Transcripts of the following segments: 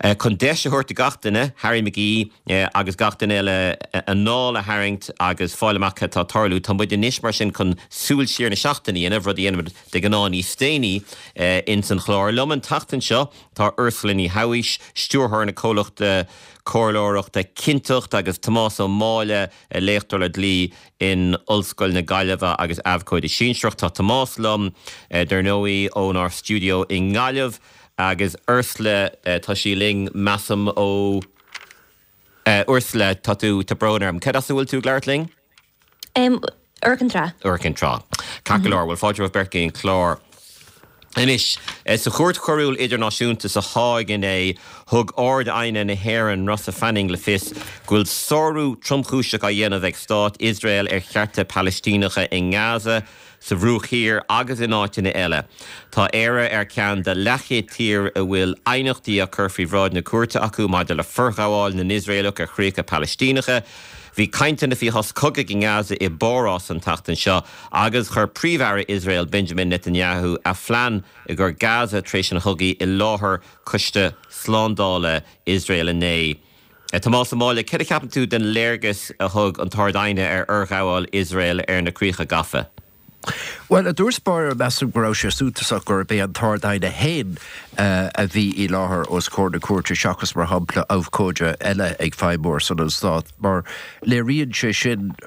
Chun deis a thabhairt do gach duine, Harry McGee agus gach duine eile, anáil a tharraingt agus fáil amach cad tá ag tarlú, tá muid anois mar sin chun súil siar na seachtaine a dhéanamh, rud a dhéanaimid de ghnáth níos déanaí ins an chlár. Liom an tseachtain seo tá Ursula Ní Shabhaois, stiúrthóir na comhlachta comhairleoireachta Cinnteacht agus Tomás Ó Máille, léachtóir le dlí in Ollscoil na Gaillimhe agus abhcóide sinsearach. Tá Tomás liom, dar ndóigh, ónár stiúideo i nGaillimh agus Ursula, tá sí linn, measaim, ó. Ursula, tá tú, tá brón orm. Cad as a bhfuil tú ag labhairt linn? Iúr Cinn Trá. Iúr Cinn Trá. Ceart go leor, bhuel fáilte romhaibh beirt go dtí an clár. Anois, sa Chúirt Choiriúil Idirnáisiúnta sa Háig inné, thug Ard-Aighne na hÉireann, Rossa Fanning, le fios go bhfuil sárú tromchúiseach á dhéanamh ag Stát Iosrael ar chearta Palaistíneacha i nGaza, sa Bhruach Thiar agus in áiteanna eile. Tá Éire ar cheann de leathchéad tír a bhfuil aighneachtaí á cur faoi bhráid na cúirte acu maidir le forghabháil na nIosraelach ar chríocha Palaistíneacha. Bhí cainteanna faoi shos cogaidh i nGaza i bPárás an tseachtain seo agus chuir Príomh-Aire Iosrael Benjamin Netanyahu a phlean i gcomhair Gaza tar éis an chogaidh i láthair Choiste Slándála Iosrael inné. Tomás Ó Máille, céard a cheapann tú den léargas a thug an tArd-Aighne ar fhorghabháil Iosrael ar na críocha gafa? Bhuel, i dtús báire, measaim go raibh sé suntasach gurb é an tArd-Aighne féin a bhí i láthair os comhair na cúirte seachas, mar shampla, abhcóide eile ag feidhmiú ar son an Stáit, mar léiríonn sé sin,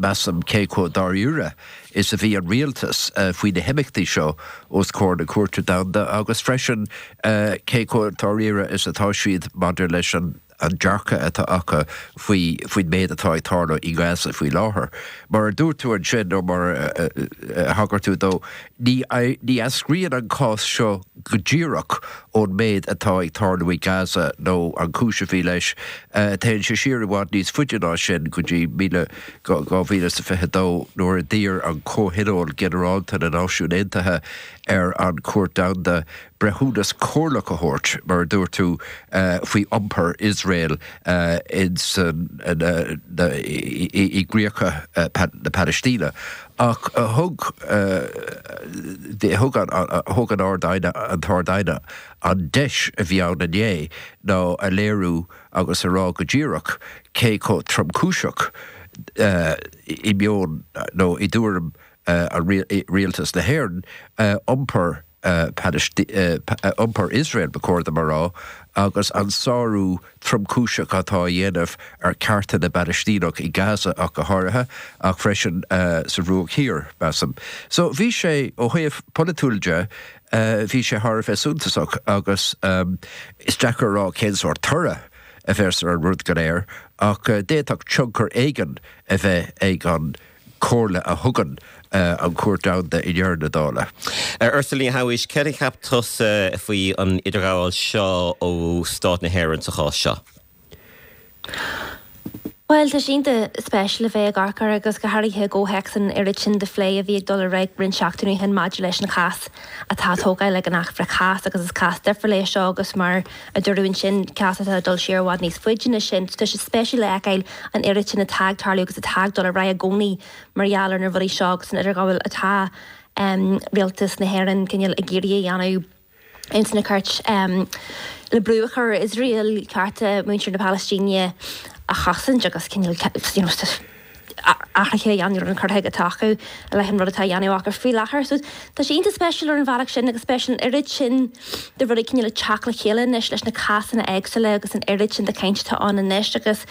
measaim, cé chomh dáiríre is a bhí an rialtas faoi na himeachtaí seo os comhair na Cúirte Domhanda agus freisin cé chomh dáiríre is atá siad maidir leis an an dearcadh atá acu faoi faoin méid atá ag tarlú i nGaza faoi láthair. Mar a dúirt tú ansin, nó mar a thagair tú dó, ní ní eascraíonn an cás seo go díreach ón méid atá ag tarlú i Gaza nó an chúis a bhí leis. Téann sé siar i bhfad níos faide ná sin, go dtí 2022 nuair a d'iarr an Comhthionól Ginearálta na Náisiún Aontaithe ar an Chúirt Domhanda breithiúnas comhairleach a thabhairt, mar a dúirt tú, faoi iompar Iosrael i gcríocha na Palaistíne. Ach thug thug an Ard-Aighne, an tArd-Aighne, an deis a bhí ann inné ná a léiriú agus a rá go díreach cé chomh tromchúiseach i meon nó i dtuairim rialtas na hÉireann iompar iompar Iosrael, ba chóir dom a rá, agus an sárú tromchúiseach atá á dhéanamh ar chearta na bPalaistíneach i Gaza ach go háirithe, ach freisin sa Bhruach Thiar, measaim. So bhí sé, ó thaobh polaitiúil de, bhí sé thar a bheith suntasach agus is deacair a rá cén sórt toradh a bheas ar an rud go léir ach d'fhéadfadh tionchar éigin a bheith ag an comhairle a thugann an Chúirt Domhanda i ndeireadh na dála. Ursula Ní Shabhaois, céard a cheap tusa faoi an idirghabháil seo ó Stát na hÉireann sa chás seo? Bhuel, tá sé iontach spéisiúil a bheith ag amharc air agus go háirithe i gcomhthéacs an oiread sin de phlé a bhí ag dul ar aghaidh roinnt seachtainí ó shin maidir leis an chás atá á tógáil ag an Acht Frith-Chás agus is cás difriúil é seo agus mar a dúradh ansin, cás atá ag dul siar i bhfad níos faide ná sin. Tá sé spéisiúil a fheiceáil an oiread sin atá ag tarlú agus atá ag dul ar aghaidh i gcónaí mar gheall ar na rudaí seo agus an idirghabháil atá rialtas na hÉireann cineál ag iarraidh a dhéanamh ins na cúirt le brú a chur ar Iosrael cearta muintir na Palaistíne a chosaint agus cineál you know athruithe a dhéanamh ar an cur chuige atá acu i leith an rud atá á dhéanamh acu faoi láthair. So tá sé iontach spéisiúil ar an bhealach sin agus spéisiúil an oiread sin de rudaí cineál ag teacht le chéile anois leis na cásanna éagsúla agus an oiread sin de chaint atá ann anois agus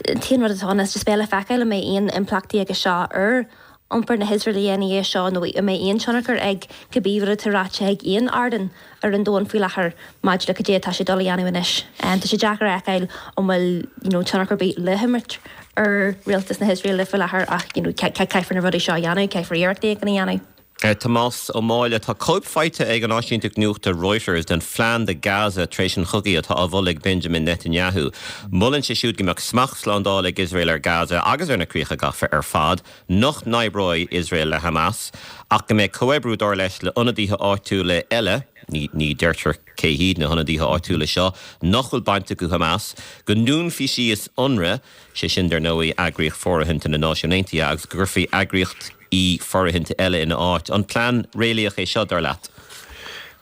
an t-aon rud atá ann is just beidh le feiceáil an mbeidh aon impleachtaí aige seo ar iompar na hIosraeile ina dhiaidh seo nó an mbeidh aon tionchar ag cibé rud atá ráite ag aon ardán ar an domhan faoi láthair maidir le cad é atá sé ag dul a dhéanamh anois. Tá sé deacair a fheiceáil an bhfuil you know tionchar ar bith le himirt ar rialtas na hIosraeile faoi láthair ach you know caithfear na rudaí seo a dhéanamh, caithfear iarracht éigin a dhéanamh. Tomás Ó Máille, Tá cóip faighte ag an áisínteacht nuachta Reuters den phlean do Gaza tar éis an chogaidh atá á mholadh ag Benjamin Netanyahu. Molann sé siúd go mbeadh smacht slándála ag Iosrael ar Gaza agus ar na críocha gafa ar fad, nach n-oibreoidh Iosrael le Hamas, ach go mbeidh comhoibriú, dar leis, le ionadaithe áitiúla eile, ní deirtear cé hiad na hionadaithe áitiúla seo, nach bhfuil baint acu Hamas, go ndúnfaí síos Unrwa, sé sin, dar ndóigh, eagraíocht fóirithinte na Náisiún Aontaithe, agus go gcuirfí eagraíocht. fóirithinte eile ina áit. An plean réalaíoch é seo, dar leat?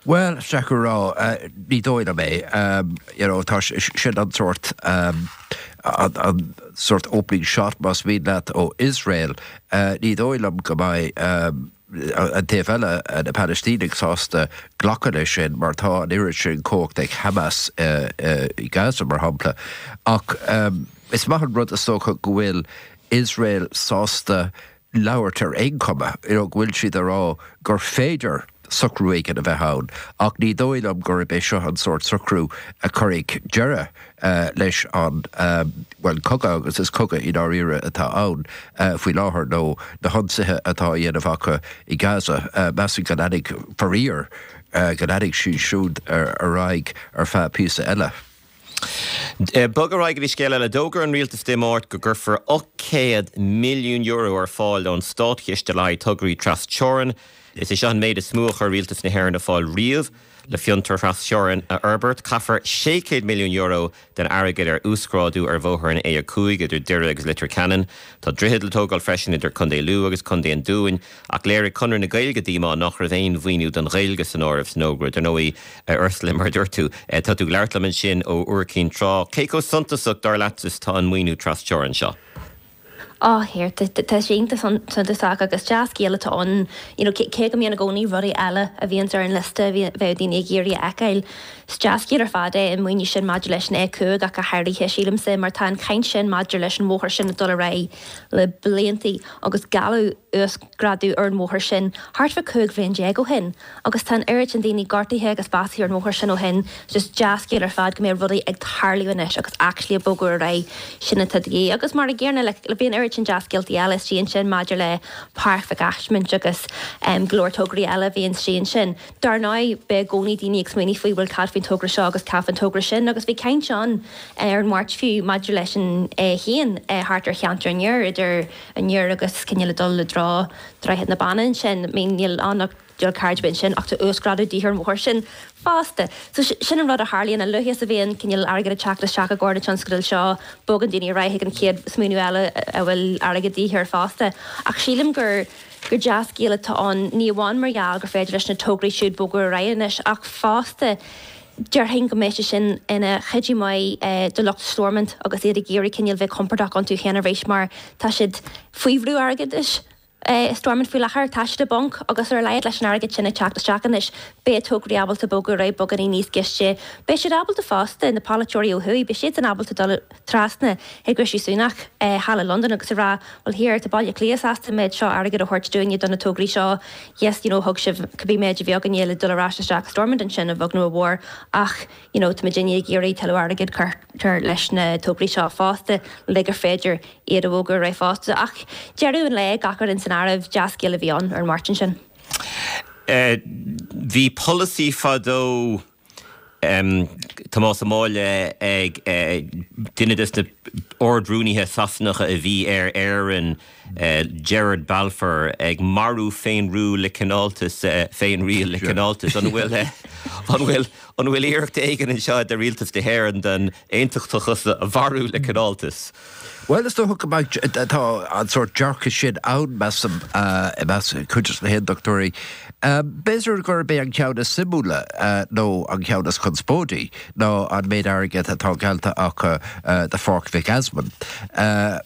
Bhuel, is deacair a rá. Ní dóigh liom é. You know, tá sin an sórt, an sórt opening shot, más mian leat, ó Iosrael. Ní dóigh liom go mbeidh an taobh eile, na Palaistínigh, sásta glacadh leis sin mar tá an oiread sin cumhacht ag Hamas i Gaza, mar shampla. Ach is maith an rud, is dócha, go bhfuil Iosrael sásta labhairt ar aon chuma, you know, go bhfuil siad ag rá gur féidir socrú éigin a bheith ann, ach ní dóigh liom gurb é seo an sórt socrú a chuirfidh deireadh leis an, bhuel, cogadh, agus is cogadh i ndáiríre atá ann faoi láthair, nó na hionsaithe atá á dhéanamh acu i Gaza. Measaim go leanfaidh, faraor, go leanfaidh siad siúd ar aghaidh ar feadh píosa eile. Bog ar aghaidh go dtí scéal eile. D'fhógair an rialtas Dé Máirt go gcuirfear €800 milliún ar fáil ón státchiste le haghaidh tograí tras-teorann. Is é seo an méid is mó a chuir rialtas na hÉireann ar fáil riamh le fiontair thras-teorann a fhorbairt. Caithfear €600 milliún den airgead ar uasghrádú ar bhóthar an A5 idir Doire agus Leitir Ceanainn. Tá droichead le tógáil freisin idir Contae Lú agus Contae an Dúin. Ach léirigh Conradh na Gaeilge díomá nach raibh aon mhaoiniú don Ghaeilge san áireamh san fhógra. Dar ndóigh, a Ursula, mar a dúirt tú, tá tú ag labhairt liom ansin ó Iúr Cinn Trá. Cé chomh suntasach, dar leatsa, is atá an maoiniú tras-teorann seo? Á, here, tá sé iontach suntasach agus dea-scéal atá ann, you know, cé go mbíonn i gcónaí rudaí eile a bhíonns ar an liosta a bheadh daoine ag iarraidh a fheiceáil. Is dea-scéal ar fad é an maoiniú sin maidir leis an A5 ach go háirithe, sílimse, mar tá an chaint sin maidir leis an bhóthar sin ag dul ar aghaidh le bliantaí agus gealladh uasghrádú ar an bhóthar sin thart fá 15 bhliain ó shin agus tá an oiread sin daoine gortaithe agus básaithe ar an bhóthar sin ó shin. Just dea-scéal ar fad go mbeidh rudaí ag tarlú anois agus actually ag bogadh ar aghaidh, sin atá de dhíth. Agus mar an gcéanna like bhí an oiread sin dea-scéaltaí eile istigh ansin maidir le Páirc Mhic Asmaint agus go leor tograí eile a bhí istigh ansin. Dar ndóigh, beidh i gcónaí daoine ag smaoineamh faoi bhuel cad faoin togra seo agus cad faoin togra sin agus bhí caint ann ar an Mháirt fiú maidir leis an A1 thart ar cheantar an Iúir, idir an Iúr agus cineál ag dul i dtreo Droichead na Banna ansin. I mean níl ann ach dual carriageway ansin ach tá uasghrádú de dhíth ar an bhóthar sin fosta. So sin an rud a tharlaíonn, a luaithe is a bhíonn cineál airgead ag teacht isteach i gcomhair na tionscadail seo, bogann daoine ar aghaidh chuig an chéad smaoineamh eile a bhfuil airgead de dhíth air fosta. Ach sílim gur gur dea-scéal atá ann, ní amháin mar gheall gur féidir leis na tograí siúd bogadh ar aghaidh anois ach fosta déarfainn go mbeidh sé sin ina chuidiú maith do lucht Stormont agus iad ag iarraidh cineál bheith compordach iontu féin arís mar tá siad faoi bhrú airgeadais i Stormont faoi láthair. Tá siad i bponc agus ar a laghad leis an airgead sin ag teacht isteach anois beidh tograí ábalta bogadar aghaidh beagáinín níos gaiste. Beidh siad ábalta fosta, na polaiteoirí ó thuaidh, beidh siadsan ábalta dul trasna chuig Rishi Sunak thall i Londain agus a rá, bhuel here, tá Baile Átha Cliath sásta an méid seo airgid a thabhairt dúinne do na tograí seo, yes, you know, thug sibh cibé méid a bhí againne le dul ar ais isteach i Stormont ansin, a bheag nó a mhór, ach, you know, tá muidinne ag iarraidh tuilleadh airgid cuirtear leis na tograí seo fosta le gur féidir iad a bhogadh ar aghaidh fosta. Ach deireadh an lae, gach rud san áireamh, dea-scéal a bhí ann ar an Máirt ansin. Bhí polasaí fadó Tomás Ó Máille ag duine des na Ard-Rúnaithe Sasanacha a bhí ar Éirinn, Gerard Balfour, ag marú féinriúil le cineáltas, féinriail le cineáltas. An bhfuil, an bhfuil, an bhfuil iarracht éigin anseo de Rialtas na hÉireann den aontachtachas a mharú le cineáltas? Bhuel, is dócha go mbeidh, tá an sórt dearcadh sin ann, measaim, i measc cuid de na haontachtóirí. B'fhéidir gurb é an ceann is suimiúla, nó an ceann is conspóidí, ná an méid airgid atá geallta acu do Pháirc Mhic Easmainn.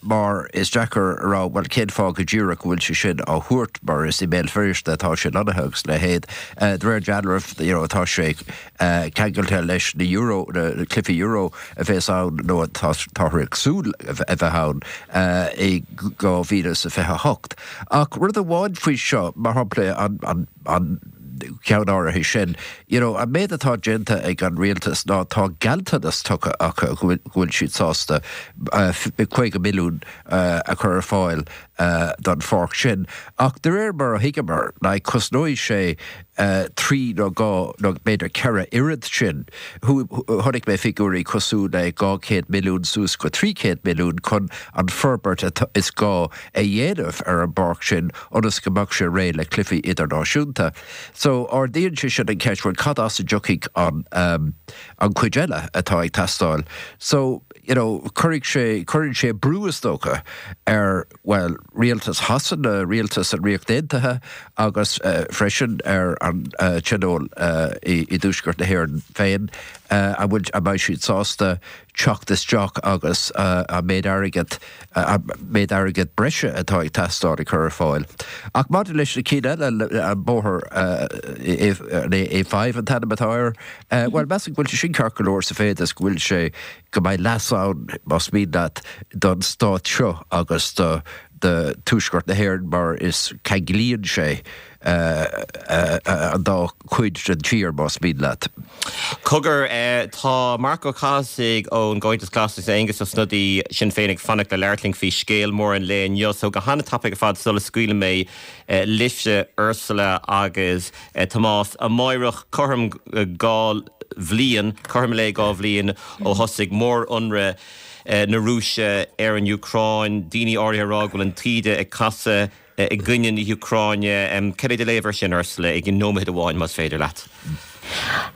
Mar is deacair a rá, bhuel, cén fáth go díreach go bhfuil sé sin á thabhairt, mar is i mBéal Feirste atá sé lonnaithe agus a leithéid. De réir dealraimh, you know, tá sé ceangailte leis na Euro, na cluichí Euro a bheas ann nó atáthar ag súil a bheith ann i 2028. Ach rud amháin faoi seo, mar shampla an an ceann áirithe sin, you know, an méid atá déanta ag an rialtas ná tá gealltanas tugtha acu go bhfuil siad sásta 50 milliún a chur ar fáil don pháirc sin. Ach de réir mar a thuigeamar, like, cosnóidh sé 3 nó 2 nó b'fhéidir 4 oiread sin. Chonaic mé figiúirí cosúil le 200 milliún suas go 300 milliún chun an forbairt is gá a dhéanamh ar an bpáirc sin ionas go mbeadh sé réidh le cluichí idirnáisiúnta. So ardaíonn sé sin an cheist, bhuel cad as a dtiocfaidh an an cuid eile atá ag teastáil? So. you know, cuirfidh sé, cuireann sé brú is dócha ar, bhuel, rialtas Shasana, rialtas an Ríocht Aontaithe agus freisin ar an Tionól i dTuaisceart na hÉireann féin, an bhfuil, an mbeidh siad sásta teacht isteach agus an méid airgid, an méid airgid breise atá ag teastáil a chur ar fáil. Ach maidir leis na cinn eile, an bóthar, an A5 an t-ainm atá air, bhuel, measaim go bhfuil sé sin ceart go leor sa mhéid is go bhfuil sé, go mbeidh leas ann, más mian leat, don stát seo agus do Tuaisceart na hÉireann mar is ceanglaíonn sé an dá chuid den tír, más mian leat. Cogar, tá Marc Ó Cathasaigh ón gComhaontas Glas agus Aengus Ó Snodaigh, Sinn Féin, ag fanacht le labhairt linn faoi scéal mór an lae inniu. So go han-tapaidh ar fad sula scaoilim mé libhse, Ursula agus Tomás, amáireach cothrom 2 bhliain, cothrom lae 2 bhliain ó thosaigh mór-ionradh na Rúise ar an Úcráin. Daoine áirithe ag rá go bhfuil an taoide ag casadh i gcoinne na hÚcráine. Cad é do léamh air sin, Ursula, i nóiméad amháin, más féidir leat?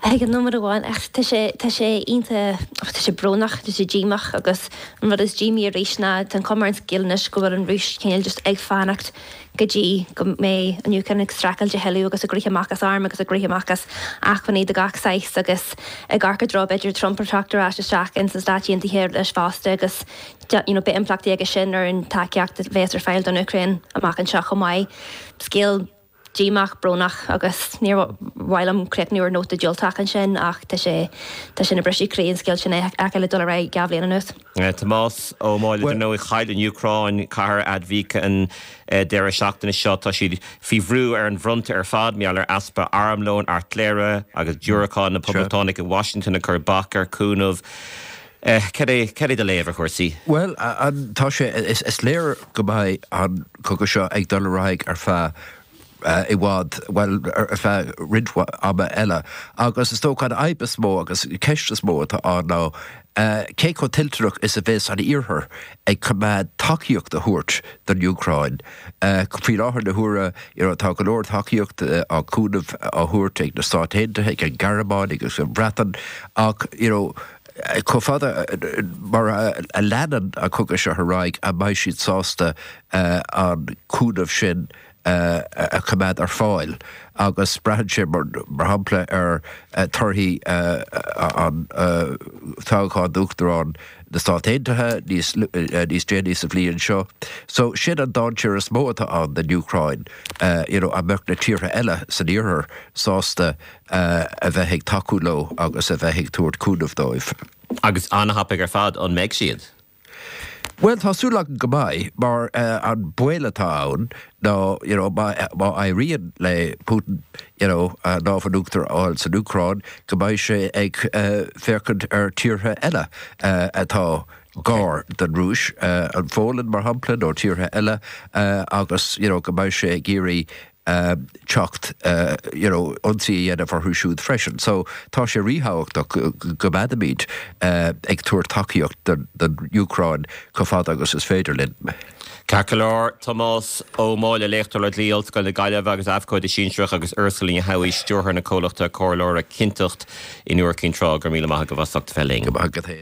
I nóiméad amháin, ach tá sé, tá sé iontach, tá sé brónach, tá sé díomách agus an rud is díomaí arís ná tá an chuma ar an scéal anois go bhfuil an Rúis cineál just ag fanacht go dtí go mbeidh an Úcráin ag streachailt a thuilleadh agus ag rith amach as airm agus ag rith amach as acmhainní de gach saghas agus ag amharc i dtreo b'fhéidir Trump ag teacht ar ais isteach ins na Stáit Aontaithe leis fosta agus you know, beidh impleachtaí aige sin ar an tacaíocht a bheas ar fáil don Úcráin amach anseo chomh maith. Scéal díomách, brónach agus níor mhaith liom críochnú ar nóta diúltach ansin ach tá sé, tá sé ina briseadh croí an scéal sin a fheiceáil ag dul ar aghaidh 2 bhliain anuas. Tomás Ó Máille, Dar ndóigh, chaill an Úcráin cathair Avdiivka an deireadh seachtaine seo. Tá siad faoi bhrú ar an bhfronta ar fad mar gheall ar easpa armlóin, airtléire agus diúracán, na Poblachtánaigh i Washington ag cur bac ar chúnamh. Cad é, cad é do léamh ar chúrsaí? Bhuel, tá sé, is léir go mbeidh an cogadh seo ag dul ar aghaidh ar feadh i bhfad, bhuel, ar feadh roinnt ama eile. Agus is dócha an fhadhb is mó agus an ceist is mó atá ann ná cé chomh toilteanach is a bheas an Iarthar ag coimeád tacaíocht a thabhairt don Úcráin. Faoi láthair na huaire, you know, tá go leor tacaíocht á cúnamh á thabhairt ag na Stáit Aontaithe, ag an Ghearmáin agus an Bhreatain ach, you know, chomh fada mar a leanann an cogadh seo ar aghaidh, an mbeidh siad sásta an cúnamh sin a choimeád ar fáil? Agus braitheann sé, mar shampla, ar torthaí an toghcháin d'Uachtarán na Stát Aontaithe níos déanaí sa bhliain seo. So sin an dainséar is mó atá ann don Úcráin, you know, an mbeadh na tíortha eile san Iarthar sásta a bheith ag tacú leo agus a bheith ag tabhairt cúnamh dóibh. Agus an-thapaidh ar fad, an mbeidh siad? Bhuel, tá súil agam go mbeidh, mar an baol atá ann ná, you know, má éiríonn le Putin, you know, an lámh in uachtar a fháil san Úcráin, go mbeidh sé ag féachaint ar tíortha eile atá gar don Rúis, an Pholainn, mar shampla, nó tíortha eile, agus, you know, go mbeidh sé ag iarraidh teacht you know ionsaí a dhéanamh orthu siúd freisin. So tá sé ríthábhachtach go gcoimeádfaimid ag tabhairt tacaíocht don Úcráin chomh fada agus is féidir linn. Ceart go leor, Tomás Ó Máille, Léachtóir le Dlí, Ollscoil na Gaillimhe agus Abhcóide Sinsearach agus Ursula Ní Shamhaigh, Stiúrthóir na comhlachta comhairleora Cinnteacht in Iúr Cinn Trá, go raibh míle maith agaibh as ucht a bheith linn. Go maith agat féin.